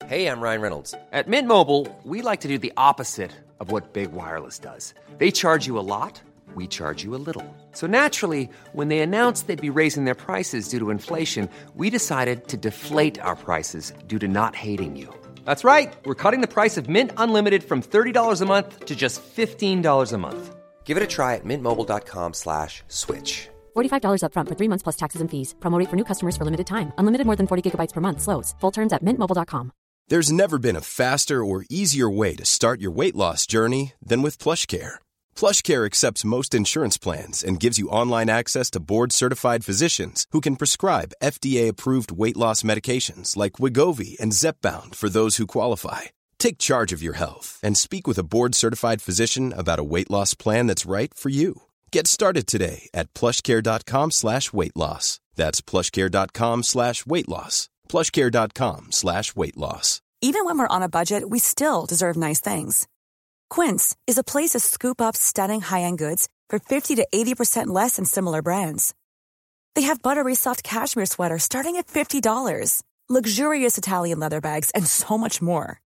Hey, I'm Ryan Reynolds. At Mint Mobile, we like to do the opposite of what Big Wireless does. They charge you a lot, we charge you a little. So naturally, when they announced they'd be raising their prices due to inflation, we decided to deflate our prices due to not hating you. That's right. We're cutting the price of Mint Unlimited from $30 a month to just $15 a month. Give it a try at mintmobile.com slash switch. $45 upfront for three months plus taxes and fees. Promo rate for new customers for limited time. Unlimited more than 40 gigabytes per month. Slows. Full terms at mintmobile.com. There's never been a faster or easier way to start your weight loss journey than with PlushCare. PlushCare accepts most insurance plans and gives you online access to board-certified physicians who can prescribe FDA-approved weight loss medications like Wegovy and Zepbound for those who qualify. Take charge of your health and speak with a board-certified physician about a weight loss plan that's right for you. Get started today at plushcare.com slash weight loss. That's plushcare.com slash weight loss. plushcare.com slash weight loss. Even when we're on a budget, we still deserve nice things. Quince is a place to scoop up stunning high-end goods for 50 to 80% less than similar brands. They have buttery soft cashmere sweaters starting at $50, luxurious Italian leather bags, and so much more.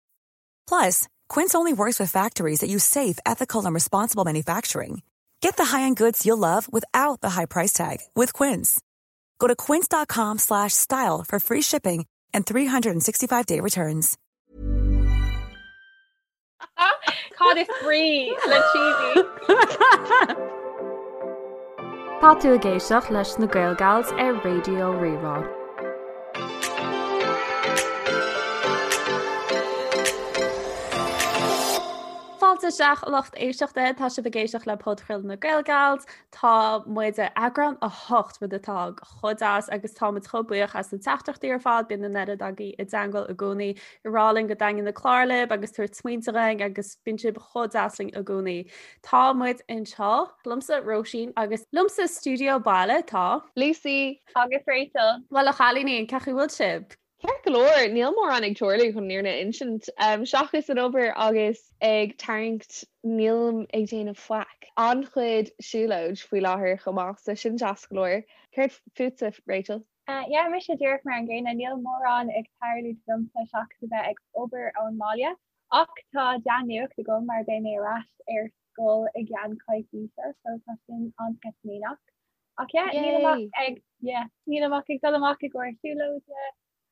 Plus, Quince only works with factories that use safe, ethical, and responsible manufacturing. Get the high-end goods you'll love without the high price tag with Quince. Go to quince.com slash style for free shipping and 365-day returns. Cad is brí le cheesy? Tá tú ag éisteacht leis na Gaelgals ar Raidió Rí-Rá. Fáilte isteach a lucht éisteachta, tá sibh ag éisteacht le podchraoladh na Gaelgals. Tá muid ar eagrán 8 rud atá chomh deas agus tá muid chomh buíoch as na teachtaireachtaí ar fad, bíonn an oiread agaibh i dteangmháil i gcónaí ag rá linn go dtaitníonn na cláir libh agus tabhairt smaointe dhúinn agus bíonn sibh chomh deas linn i gcónaí. Tá muid anseo liomsa Róisín agus liomsa sa stiúideo baile tá. Lucy. Agus Rachel. Bhuel a chailíní, cén chaoi a bhfuil sibh? Ceart go leor, níl mórán ag tarlú chun an fhírinne a insint. Seachas an obair agus ag tarraingt nílim ag déanamh faic. An-chuid siúlóid faoi láthair chomh maith, so sin deas go leor. Céard fútsa, Rachel? Yeah, mise díreach mar an gcéanna, níl mórán ag tarlú domsa seachas a bheith ag obair ón mbaile. Ach tá dea-nuacht agam mar beidh mé ar ais ar scoil i gceann coicíse, so tá sin an-sceitimíneach. Ach yeah, nílim ach ag, yeah, nílim ach ag dul amach i gcomhair siúlóide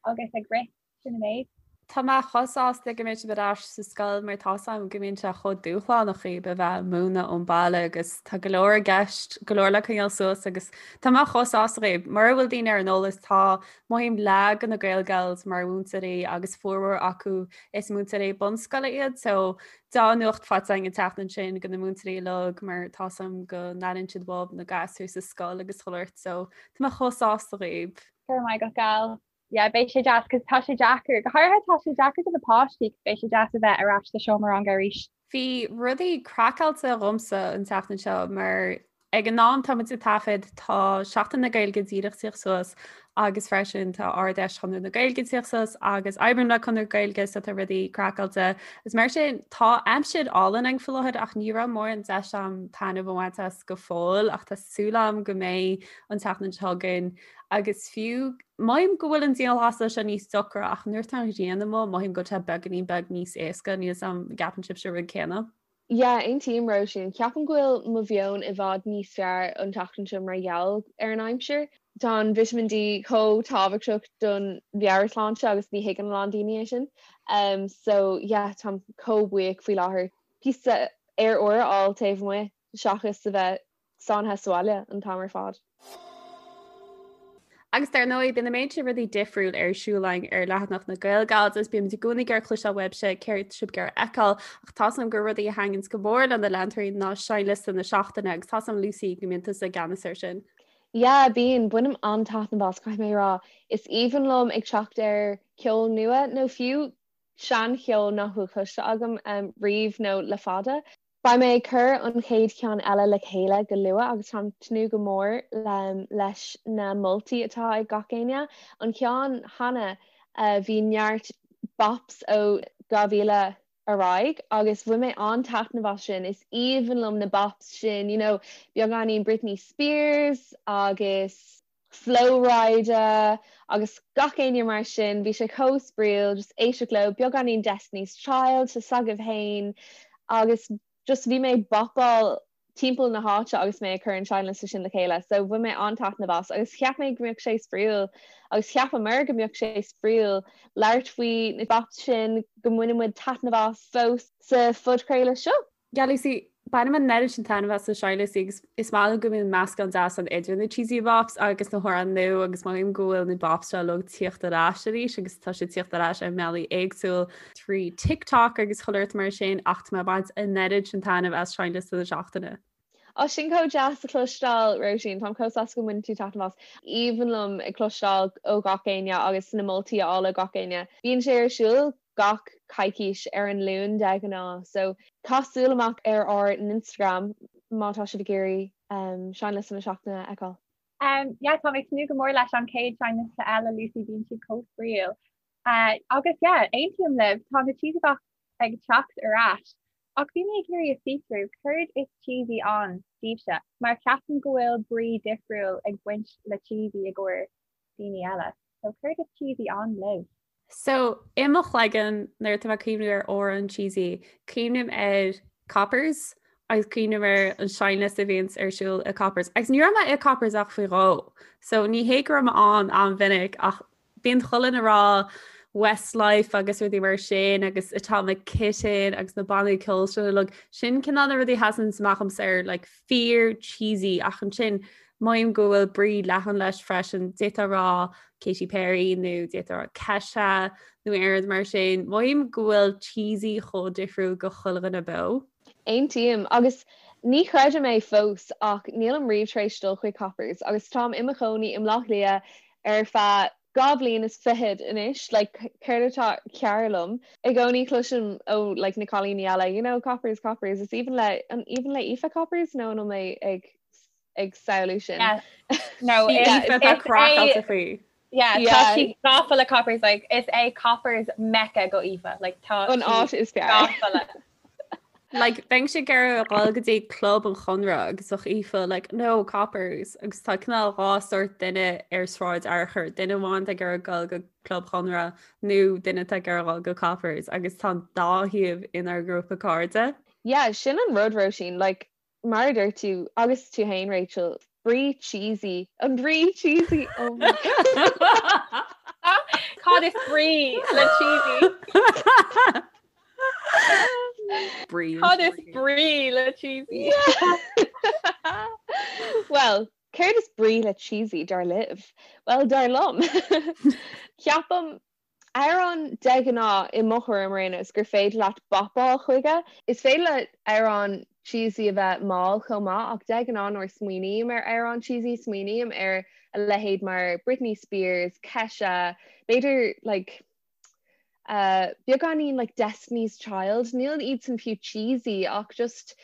agus ag rith, sin an méid. Tá mé chomh sásta go mbeidh sibh ar ais sa scoil mar tá 's agam go mbíonn sé chomh dúshlánach dhaoibh a bheith ag múineadh ón baile agus tá go leor i gceist, go leor le coinneáil suas agus tá mé chomh sásta dhaoibh. Mura bhfuil daoine ar an eolas tá mothaím leath de na Gaelgals mar mhúinteoirí agus formhór acu is múinteoirí bunscoile iad so Dea-nuacht faighte againn an tseachtain sin do na múinteoirí uilig mar tá 's agam go n-airíonn siad uathub na gasúir sa scoil agus chuile shórt so tá mé chomh sásta dhaoibh. Go raibh maith agat gal. Yeah, beidh sé deas cos tá sé deacair, go háirithe tá sé deacair do na páistí cos beidh sé deas a bheith ar ais sa seomra ranga arís. Bhí rudaí craiceáilte dhomsa an tseachtain seo mar Ag an am tá muid ag taifead, tá Seachtain na Gaeilge díreach tíocht suas agus freisin tá Ard-Fheis Chonradh na Gaeilge tíocht suas agus oibrím le Conradh na Gaeilge so tá rudaí craiceáilte. Is mar sin tá aimsir álainn ann faoi láthair ach ní raibh mórán deis a'm taitneamh a bhaint as go fóill ach tá súil a'm go mbeidh an tseachtain seo chugainn agus fiú mothaím go bhfuil an dianghlasáil seo níos deacra ach nuair atá an ghrian amuigh mothaím go bhfuil sé beagáinín beag níos éasca níl 's a'm an gceapann sibhse an rud céanna. Yeah, aontaím Róisín. Ceapaim go bhfuil mo mheon i bhfad níos fearr an tseachtain seo mar gheall ar an aimsir. Tá an Vitamin D chomh tábhachtach don mheabhairshláinte agus ní thuigeann a lán daoine é sin. Um, so yeah, táim chomh buíoch faoi láthair píosa aer úr a fháil taobh amuigh seachas a bheith sáinnithe sa bhaile an t-am ar fad. Agus dar ndóigh, bíonn an méid sin rudaí difriúil ar siúl againn ar leathanach na Gaelgals agus bímid i gcónaí ag iarraidh cloisteáil uaibhse céard sibh ag iarraidh a fheiceáil ach tá 's agam gur rudaí a thaitníonns go mór le na leantóirí ná seinnliosta na seachtaine agus tá 's agam Lucy go mbíonn tusa i gceannas air sin. Yeah, bíonn. Bainim an-taitneamh as, caithfidh mé a rá. Is aoibhinn liom ag teacht ar cheol nua nó fiú seancheol nach bhfuil cloiste agam riamh nó le fada. Beidh mé ag cur an chéad cheann eile le chéile go luath agus táim ag tnúth go mór leis na moltaí atá ag gach éinne. An ceann cheana bhí neart bops ó 2000 ar aghaidh agus bhain mé an-taitneamh as sin. Is aoibhinn liom na bops sin, you know, beagáinín Britney Spears agus. Flo Rida agus gach éinne mar sin, bhí sé chomh spraíúil just éisteacht leo, beagáinín Destiny's Child tá a fhios agaibh féin agus just bhí mé ag bopáil timpeall na háite agus mé ag cur an seinnliosta sin le chéile so bhain mé an-taitneamh as agus cheap mé go mbeadh sé spraíúil agus cheapamar go mbeadh sé spraíúil labhairt faoi na bops sin go mbaineann muid taitneamh as fós sa phodchraoladh seo. Yeah Lucy, bainim an oiread sin taitneamh as na seinnliostaí agus is maith liom go mbíonn meascán deas ann idir na cheesy bops agus na hamhráin nua agus mothaím go bhfuil na bops seo uilig ag tíocht ar ais arís agus tá siad ag tíocht ar ais ar mbealaí éagsúil trí TikTok agus chuile shórt mar sin ach tá mé ag baint an oiread sin taitneamh as seinnliosta na seachtaine. Á sin chomh deas a chloisteáil, Róisín. Táim chomh sásta go mbaineann tú taitneamh as. Aoibhinn liom ag cloisteáil ó gach éinne agus na moltaí a fháil ó gach éinne. Bíonn sé ar siúl gach coicís ar an Luan de ghnáth so caith súil amach ar ár n-Instagram má tá sibh ag iarraidh seinnliosta na seachtaine a fheiceáil. Um yeah tá mé ag tnúth go mór leis an chéad seinnliosta eile Lucy bíonn siad chomh spraíúil. Uh, agus yeah aontaím libh tá na cheesy bops ag teacht ar ais. Ach bhí mé ag iarraidh a fiosrú céard is cheesy ann daoibhse mar ceapaim go bhfuil brí difriúil ag baint le cheesy i gcomhair daoine eile. So céard is cheesy ann libh? So, i mo chloigeann, nuair atá mé ag cuimhniú ar amhrán cheesy, cuimhním ar Coppers agus cuimhním ar an seinnliosta a bhíonns ar siúl i Coppers. Agus ní raibh mé i Coppers ach faoi dhó. So, ní hé go raibh mé ann an-mhinic ach bíonn chuile dhuine ag rá Westlife agus rudaí mar sin agus Atomic Kitten agus na bannaí ceoil sin uilig. Sin cineál na rudaí a sheasann amach domsa ar like, fíor cheesy ach ansin Mothaím go bhfuil brí leathan leis freisin, d'fhéadfá a rá Katy Perry nó d'fhéadfá a rá Kesha nó aon rud mar sin. Mothaím go bhfuil cheesy chomh difriúil go chuile dhuine beo. Aontaím, agus ní chreidim é fós ach nílim riamh tar éis dul chuig Coppers agus táim i mo chónaí i mBleá Cliath ar feadh 2 bhliain is fichead anois, like céard atá cearr liom? I gcónaí cloisim ó like na cailíní eile, you know, Coppers, Coppers, is aoibhinn le, an aoibhinn le Aoife Coppers nó an bhfuil mé ag ag samhlú sin. No, tá craiceáilte faoi. Yeah, tá sí gafa le Coppers like is é Coppers Mecca go Aoife like tá an áit is fearr. Gafa le. Like bheinnse ag iarraidh a dhul go dtí club an Chonradh agus bheadh Aoife like no Coppers agus tá cineál dhá sórt duine ar Sráid Fhearchair, duine amháin atá ag iarraidh dul go club Chonradh nó duine atá ag iarraidh dul go Coppers agus tá an dá thaobh inár ngrúpa cairde. Yeah, sin an rud Róisín, like Mar a dúirt tú, agus tú fhéin Rachel, brí cheesy, an brí cheesy, oh my God. Cad is brí le cheesy? Brí. Cad is brí le cheesy? Well, céard is brí le cheesy dar libh? Well, dar liom. Ceapaim Amhrán de ghnáth, i mo thuairim ar aon nós, gur féidir leat bopáil chuige. Is féidir le amhrán cheesy a bheith mall chomh maith ach de ghnáth nuair a smaoiním ar amhrán cheesy smaoiním ar a leithéid mar Britney Spears, Kesha, b'fhéidir like uh beagáinín like Destiny's Child, níl iadsan fiú cheesy ach just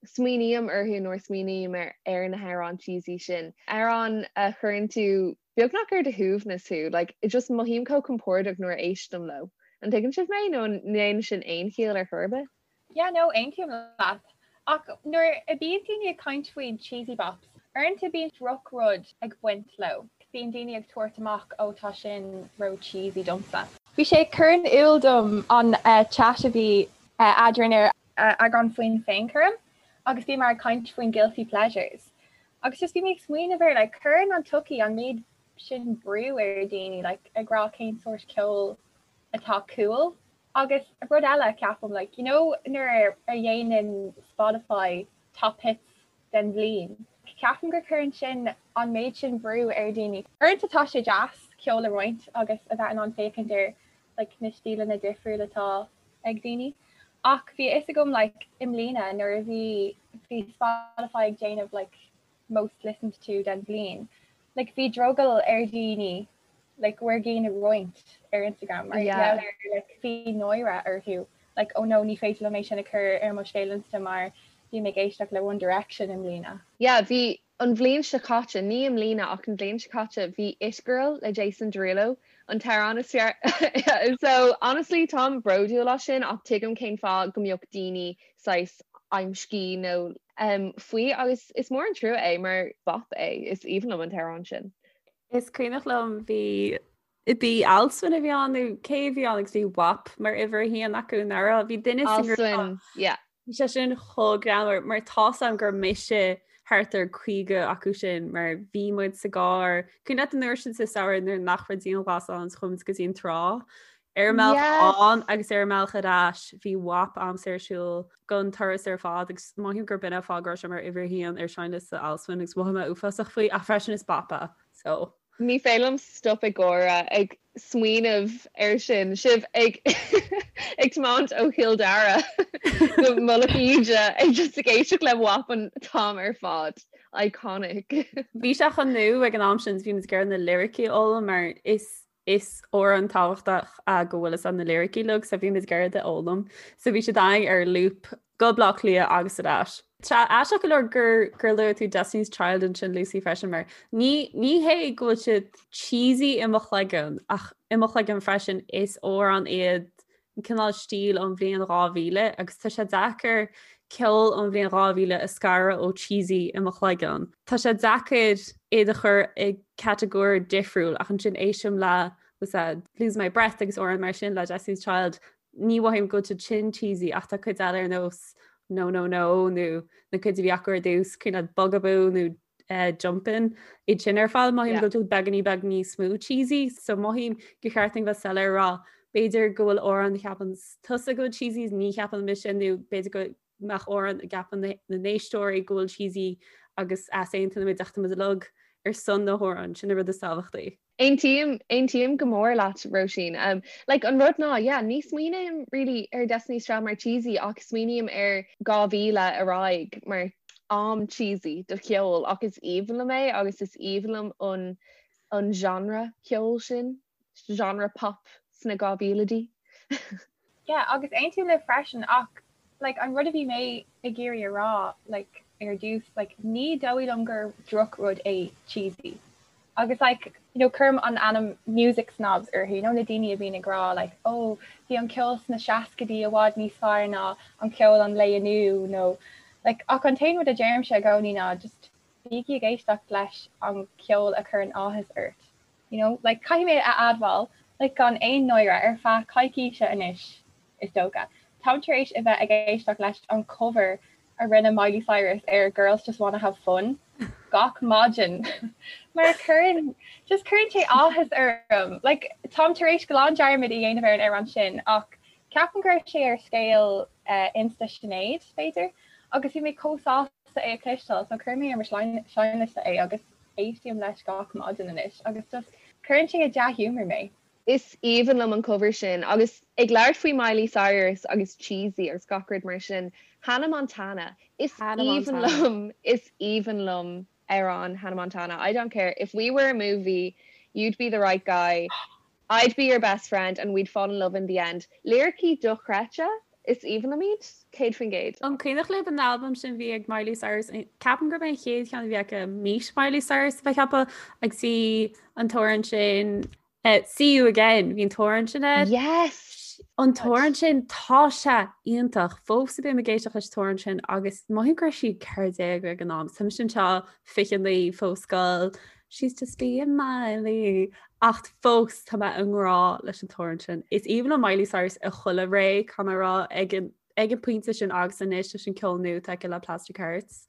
smaoiním orthu nuair a smaoiním ar ar na hamhráin cheesy sin. Amhrán a chuireann tú beagnach ar do shuaimhneas thú, like just mothaím chomh compordach nuair a éistim leo. An dtuigeann sibh mé nó an ndéanann sin aon chiall ar chor ar bith? Yeah no, aontaím leat. Ach nuair a bíonn daoine ag caint faoi cheesy bops, uaireanta bíonn drochrud ag baint leo. Bíonn daoine ag tabhairt amach oh tá sin ró cheesy domsa. Bhí sé ag cur in iúl dom an chat a bhí eadrainn ar eagrán faoin féinchúram agus bhíomar ag caint faoin guilty pleasures. Agus just bhí mé ag smaoineamh ar like cuireann an tsochaí an méid sin brú ar daoine like ag rá cén sórt ceoil atá cool. Agus rud eile ceapaim like you know nuair a dhéanann Spotify top hits den bhliain, ceapaim gur cuireann sin an méid sin brú ar daoine. Uaireanta tá sé deas ceol a roinnt agus a bheith in ann féachaint ar like na stíleanna difriúla atá ag daoine. Ach bhí a fhios agam like i mbliana nuair a bhí bhí Spotify ag déanamh like most listened to den bhliain, like bhí drogall ar dhaoine like bhur gcinn a roinnt ar Instagram mar yeah. gheall ar like bhí náire orthu like oh no ní féidir liom é sin a chur ar mo scéal Insta mar bhí mé ag éisteacht le One Direction i mbliana. Yeah, bhí An bhliain seo caite, ní i mbliana ach an bhliain seo caite, bhí It Girl le Jason Derulo an t-amhrán is fearr. So honestly táim bródúil as sin ach tuigim cén fáth go mbeadh daoine saghas amscaí nó faoi agus is mór an trua é mar bop é, is aoibhinn liom an t-amhrán sin. Is cuimhneach liom bhí bhí Alswyn a bhí ann nó cé a bhí ann agus bhí WAP mar uimhir a haon acu nach raibh bhí duine sa ngrúpa. Alswyn, yeah. Bhí sé sin chomh greannmhar mar tá's a'm gur mise thart ar 50 acu sin mar bhí muid sa gcarr. Cuimhin leat an uair sin sa samhradh nuair nach raibh dianghlasáil ann chuaigh muid go dtí an trá ar an mbealach ann agus ar an mbealach ar ais bhí WAP a'msa ar siúl don turas ar fad agus mothaím gur b'in an fáth go raibh sé mar uimhir a haon ar seinnliosta Alswyn agus mhothaigh mé uafásach faoi ach freisin is bop é so. Ní féidir liom stop ag gáire ag smaoineamh air sin, sibh ag ag tiomáint ó Chill Dara go Mullach Íde ag just ag éisteacht le WAP an t-am ar fad. Iconic. Bhí sé chomh nua ag an am sin, bhí muid ag iarraidh na liricí a fhoghlaim mar is is amhrán tábhachtach é go bhfuil fhios a'd na liricí uilig so bhí muid ag iarraidh iad a fhoghlaim. So bhí siad againn ar loop go Baile Átha Cliath agus ar ais. Tá aisteach go leor gur gur luaigh tú Destiny's Child ansin Lucy freisin mar ní ní hé go bhfuil siad cheesy i mo chloigeann ach i mo chloigeann freisin is amhrán iad an cineál stíl ón bhliain 2000 agus tá sé deacair ceol ón bhliain 2000 a scaradh ó cheesy i mo chloigeann. Tá sé deacair iad a chur i catagóir difriúil ach ansin éistim le was that Lose My Breath agus amhráin mar sin le Destiny's Child ní mhothaím go bhfuil siad sin cheesy ach tá cuid eile ar nós No No No nó na cuid a bhí acu ar dtús cuimhin leat Bugaboo nó uh, Jumpin' iad sin ar fad mothaím go bhfuil beagáinín beag níos mó cheesy so mothaím gur cheart dúinn bheith soiléir rá b'fhéidir go bhfuil amhrán a cheapann tusa go bhfuil cheesy ní cheapann mise nó b'fhéidir go mbeadh amhrán a gceapann na n-éisteoirí go bhfuil cheesy agus easaontaíonn muid ach tá muid uilig ar son na hamhráin sin an rud is tábhachtaí. Aontaím, aontaím go mór leat, Róisín. Um, like, an rud ná, yeah, ní smaoiním really ar Destiny's Child mar cheesy ach smaoiním ar 2000 ar aghaidh mar am cheesy do cheol ach is aoibhinn liom é agus is aoibhinn liom an, an genre ceoil sin, genre pop sna 2000idí. Yeah, agus aontaím libh freisin ach like an rud a bhí mé ag iarraidh a rá like ar dtús like ní dóigh liom gur drochrud é cheesy. Agus like you know cuirim an ainm music snobs orthu, you know na daoine a bhíonn ag rá like oh bhí an ceol sna seascaidí i bhfad níos fearr ná an ceol an lae inniu nó like ach an t-aon rud a deirimse i gcónaí ná just bígí ag éisteacht leis an ceol a chuireann áthas ort. You know, like caithfidh mé a admháil, like gan aon náire ar feadh coicíse anois, is dócha, táim tar éis a bheith ag éisteacht leis an cover a rinne Miley Cyrus ar Girls Just Wanna Have Fun gach maidin mar cuireann, just cuireann sé áthas orm. Like táim tar éis glan dearmad a dhéanamh ar an amhrán sin ach ceapaim go raibh sé ar scéal uh, Insta Sinéad, b'fhéidir, agus bhí mé chomh sásta é a chloisteáil, so chuir mé ar mo seinnliosta é agus Éistím leis gach maidin anois agus just cuireann sé i dea-ghiúmar mé. Is aoibhinn liom an cover sin. Agus ag labhairt faoi Miley Cyrus agus cheesy agus gach rud mar sin, Hannah Montana. Is aoibhinn liom, is aoibhinn liom amhrán Hannah Montana. I don't care if we were a movie, you'd be the right guy. I'd be your best friend and we'd fall in love in the end. Liricí dochreidte, is aoibhinn liom iad, 100%. An cuimhneach libh an albam sin bhí ag Miley Cyrus? Ceapaim gurb é an chéad cheann a bhí aici Meet Miley Cyrus a bheith ceaptha agus bhí an t-amhrán sin eh, See You Again, bhí an t-amhrán sin air. Yes! An t-amhrán sin tá sé iontach fós a bím ag éisteacht leis an t-amhrán sin agus mothaím go raibh sí 14 ag an am. Tá mise anseo 29 fós scoil. She's just being Miley. Ach fós tá mé i ngrá leis an t-amhrán sin. Is aoibhinn liom Miley Cyrus i chuile ré, caithfidh mé a rá, ag an ag an pointe sin agus anois leis an ceol nua atá aici le Plastic Hearts.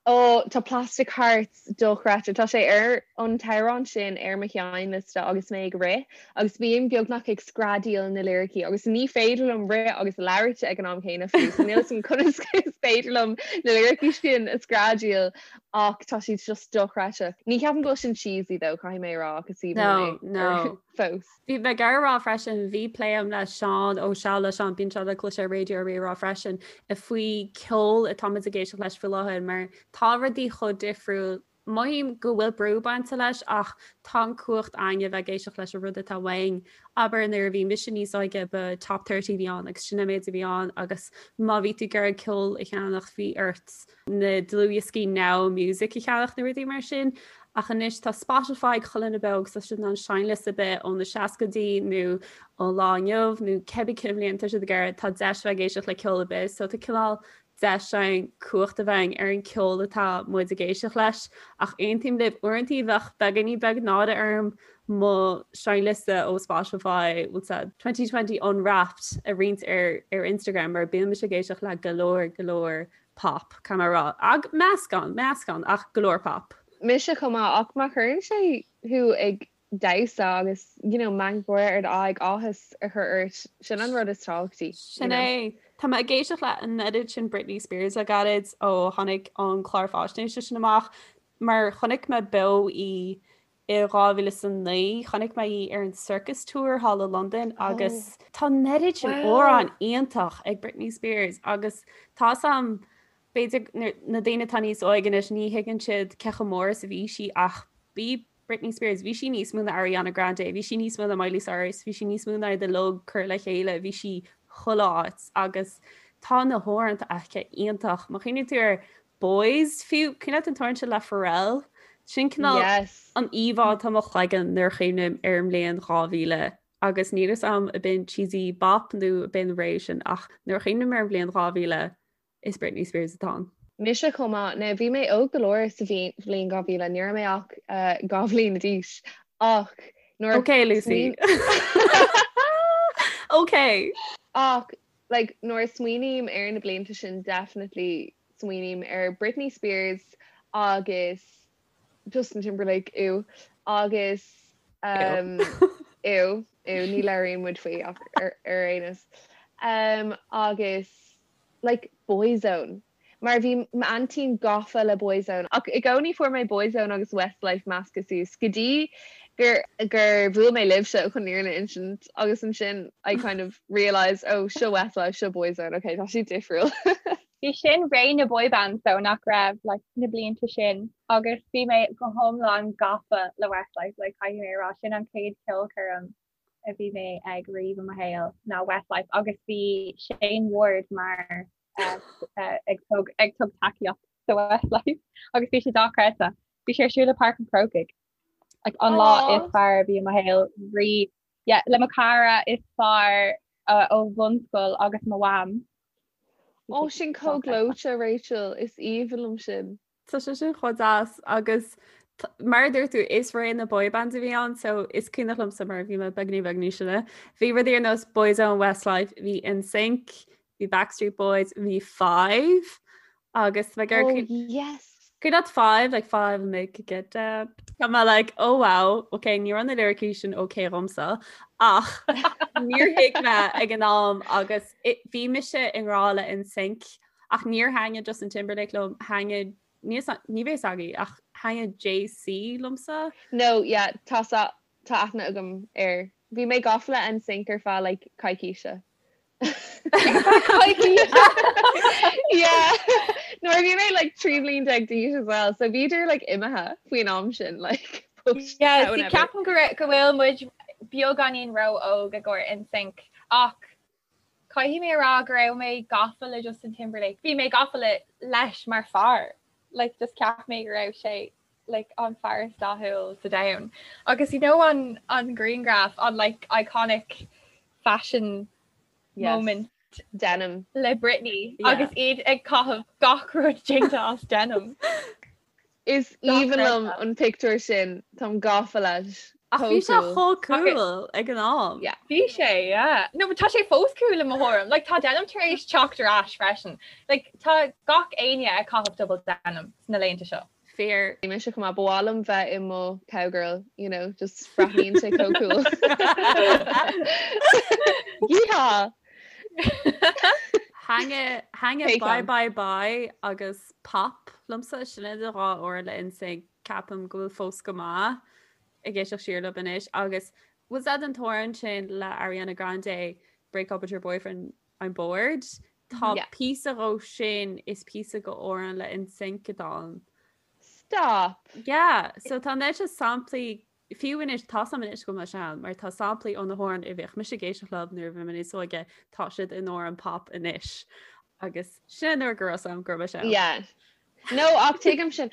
Ó, tá Plastic Hearts dochreidte. Tá sé ar an t-amhrán sin ar mo sheinnliosta agus mé ag rith agus bím beagnach ag screadaíl na liricí agus ní féidir liom rith agus labhairt ag an am céanna fiú, so níl 'fhios a'm conas is féidir liom na liricí sin a screadaíl Ach tá siad just dochreidte. Ní cheapaim go bhfuil sin cheesy though, caithfidh mé a rá, ach is aoibhinn liom é fós. Bhí mé ag iarraidh a rá freisin, bhí plé agam le Seán ó Seal le Seán, bíonn sé le cloisteáil ar Raidió Rí-Rá freisin, faoi ceol atá muid ag éisteacht leis faoi láthair mar tá rudaí chomh difriúil. Mothaím go bhfuil brú bainte leis ach tá an cumhacht againn a bheith ag éisteacht leis an rud atá uainn. Abair nuair a bhí mise níos óige ba Top 30 a bhí ann agus sin an méid a bhí ann agus má bhí tú ag iarraidh ceol a cheannach bhí ort na dlúthdhioscaí Now Music a cheannach nó rudaí mar sin. Ach anois tá Spotify ag chuile dhuine beo agus tá siad in ann seinnliosta ar bith ó na seascaidí nó ón lá inniu nó cibé cén bhliain tá siad ag iarraidh tá deis bheith ag éisteacht le ceol ar bith. So tá cineál deis againn cumhacht a bheith againn ar an ceol atá muid ag éisteacht leis ach aontaím libh, uaireantaí bheadh beagáinín beag náire orm mo seinnliosta ó Spotify bhfuil a fhios a'd 2020 Unwrapped a roinnt ar ar Instagram mar bíonn mise ag éisteacht le go leor go leor pop, caithfidh mé a rá. Ag meascán, meascán ach go leor pop. Mise chomh maith ach má chuireann sé thú ag damhsa agus you know meangadh gáire ar d'aghaidh, áthas a chur ort, sin an rud is tábhachtaí. Sin é. Tá mé ag éisteacht le an oiread sin Britney Spears le gairid ó tháinig an clár faisnéise sin amach mar chonaic mé beo í i 2009, chonaic mé í ar an Circus Tour thall i Londain agus tá an oiread sin amhrán iontach ag Britney Spears agus tá a fhios a'm b'fhéidir na daoine atá níos óige anois ní thuigeann siad cé chomh mór is a bhí sí ach bhí Britney Spears, bhí sí níos mó ná Ariana Grande, bhí sí níos mó ná Miley Cyrus, bhí sí níos mó ná iad uilig curtha le chéile, bhí sí chuile áit agus tá na hamhráin aici iontach. Má chuimhníonn tú ar Boys fiú, cuimhin leat an t-amhrán sin le Pharrell? Sin cineál Yes. an íomhá atá i mo chloigeann nuair a chuimhním ar an mbliain 2000 agus níl a fhios a'm ab in cheesy bop nó ab in ré sin ach nuair a chuimhním ar an bhliain 2000 Is Britney Spears atá ann. Mise chomh maith. Now bhí mé óg go leor sa bhliain 2000, ní raibh mé ach 2 bhliain d'aois ach nuair a. Ok Lucy. Ok! Ach like nuair a smaoiním ar na blianta sin definitely smaoiním ar Britney Spears agus Justin Timberlake ew agus um, ew ew ní labhraíonn muid faoi ach ar ar aon nós. Um, agus like Boyzone. Mar bhí m'aintín gafa le Boyzone ach i gcónaí fuair mé Boyzone agus Westlife measctha suas go dtí gur gur bhuail mé libhse chun an fhírinne a insint agus ansin I kind of realised oh seo Westlife seo Boyzone ok tá siad difriúil. Bhí sin ré na boy bands though nach raibh like na blianta sin agus bhí mé go hiomlán gafa le Westlife like caithfidh mé a rá sin an chéad cheolchoirm a bhí mé ag riamh i mo shaol ná Westlife agus bhí Shane Ward mar ag tug ag tug tacaíocht do Westlife agus bhí sé dochreidte. Bhí sé ar siúl i Páirc an Chrócaigh. Like, an lá is fearr a bhí i mo shaol riamh. Yeah, le mo cara is fearr uh, ó bhunscoil agus mo mham. Ó sin chomh gleoite Rachel, is aoibhinn liom sin. Tá sé sin chomh deas agus mar a dúirt tú is ré na boy bands a bhí ann so is cuimhneach liomsa mar bhí mé beagní beag níos sine. Bhí rudaí ar nós Boyzone, Westlife, bhí NSYNC, bhí Backstreet Boys, bhí Five agus bheith ar oh, yes. Cuimhin leat Five like Five make it get down. Tá mé like oh wow, ok ní raibh na lyricí sin ok dhomsa ach níor thuig mé ag an am agus bhí mise i ngrá le NSYNC Ach níor thaitnigh Justin Timberlake liom, thaitnigh, ní ní bheidh a fhios agaibh, ach thaitnigh JC liomsa. No, yeah, tá sa, tá aithne agam air. Bhí mé gafa le NSYNC ar feadh like coicíse. Coicíse! Yeah! Nuair a bhí mé like 13 bliain d'aois as well, so bhíodar like imithe faoin am sin like but Yeah, see, ceapaim go raibh, go bhfuil muid beagáinín ró-óg i gcomhair NSYNC ach Caithfidh mé a rá go raibh mé gafa le Justin Timberlake. Bhí mé gafa le leis mar fear. Like just cheap mé go raibh sé like an fear is dathúil sa domhan. Agus you know an an grianghraf an like iconic fashion yes. moment denim le Britney yeah. agus iad ag caitheamh gach rud déanta as denim. Is aoibhinn liom an pictiúr sin, táim gafa leis. Ach bhí sé chomh cool ag an am. Yeah. Bhí sé, yeah. No, but tá sé fós cool i mo thuairim. Like, tá denim tar éis teacht ar ais freisin. Like, tá gach éinne ag caitheamh double denim sna laethanta seo. Fíor. Mise chomh maith, ba mhaith liom bheith i mo cowgirl, you know, just breathnaíonn sé chomh cool. Yeehaw! Thaitnigh Bye Bye Bye agus Pop liomsa, sin iad an dhá amhrán le NSYNC, ceapaim go bhfuil fós go maith ag éisteacht siar leo anois agus was that an t-amhrán sin le Ariana Grande Break Up With Your Boyfriend I'm Bored? Tá píosa dhó sin is píosa go amhrán le NSYNC atá ann. Stop! Yeah, so tá an oiread sin samplaí Fiú anois, tá a fhios agam anois go bhfuil mé sean, mar tá samplaí ó na hamhráin a bhíodh mise ag éisteacht leo nuair a bhí mé níos óige, tá siad in amhráin pop anois. Agus sin nuair go raibh a fhios agam go raibh mé sean. Yeah. No, ach tuigim sin.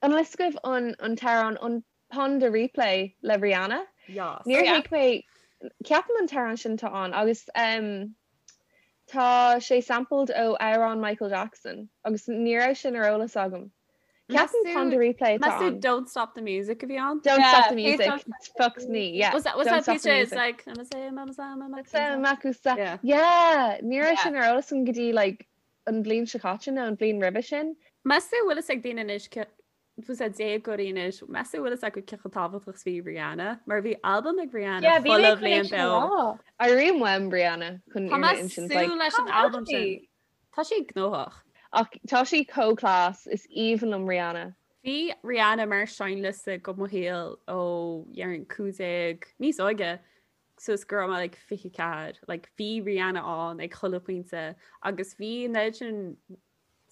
An bhfuil a fhios agaibh an an t-amhrán an Pon de Replay le Rihanna? Yes. Níor thuig mé, ceapaim an t-amhrán sin atá ann agus um. Tá sé sampled ó amhrán Michael Jackson agus ní raibh sin ar eolas agam. Ceapaim Pon de Replay atá Meas tú ann. Don't Stop the Music a bhí ann? Don't Yeah, Stop the please Music. don't stop the Fuck me, yeah. Was that was Don't that Stop piece the is Music. like I'm a say I'm a say I'm a Sa Makusa. Yeah. Yeah, ní raibh Yeah. sin ar eolas agam go dtí like an bhliain seo caite nó an bhliain roimhe sin. Meas tú bhfuil fhios ag daoine anois bhfuil a déagóirí anois, meas tú bhfuil fhios acu cé chomh tábhachtach is bhí Rihanna, mar bhí albam ag Rihanna Yeah, bhí mé chuile chun é bhliain sin a beo. rá. Airím uaim Rihanna chun Tá fhírinne mé a insint, like, súil leis an Cá bhfuil albam sí? sin. Tá sí gnóthach. Ach tá sí chomh class, is aoibhinn liom Rihanna. Bhí Rihanna mar seinnliosta go mo shaol ó déarfainn 15 níos óige suas go raibh mé like 24. Like bhí Rihanna ann ag chuile pointe agus bhí an oiread sin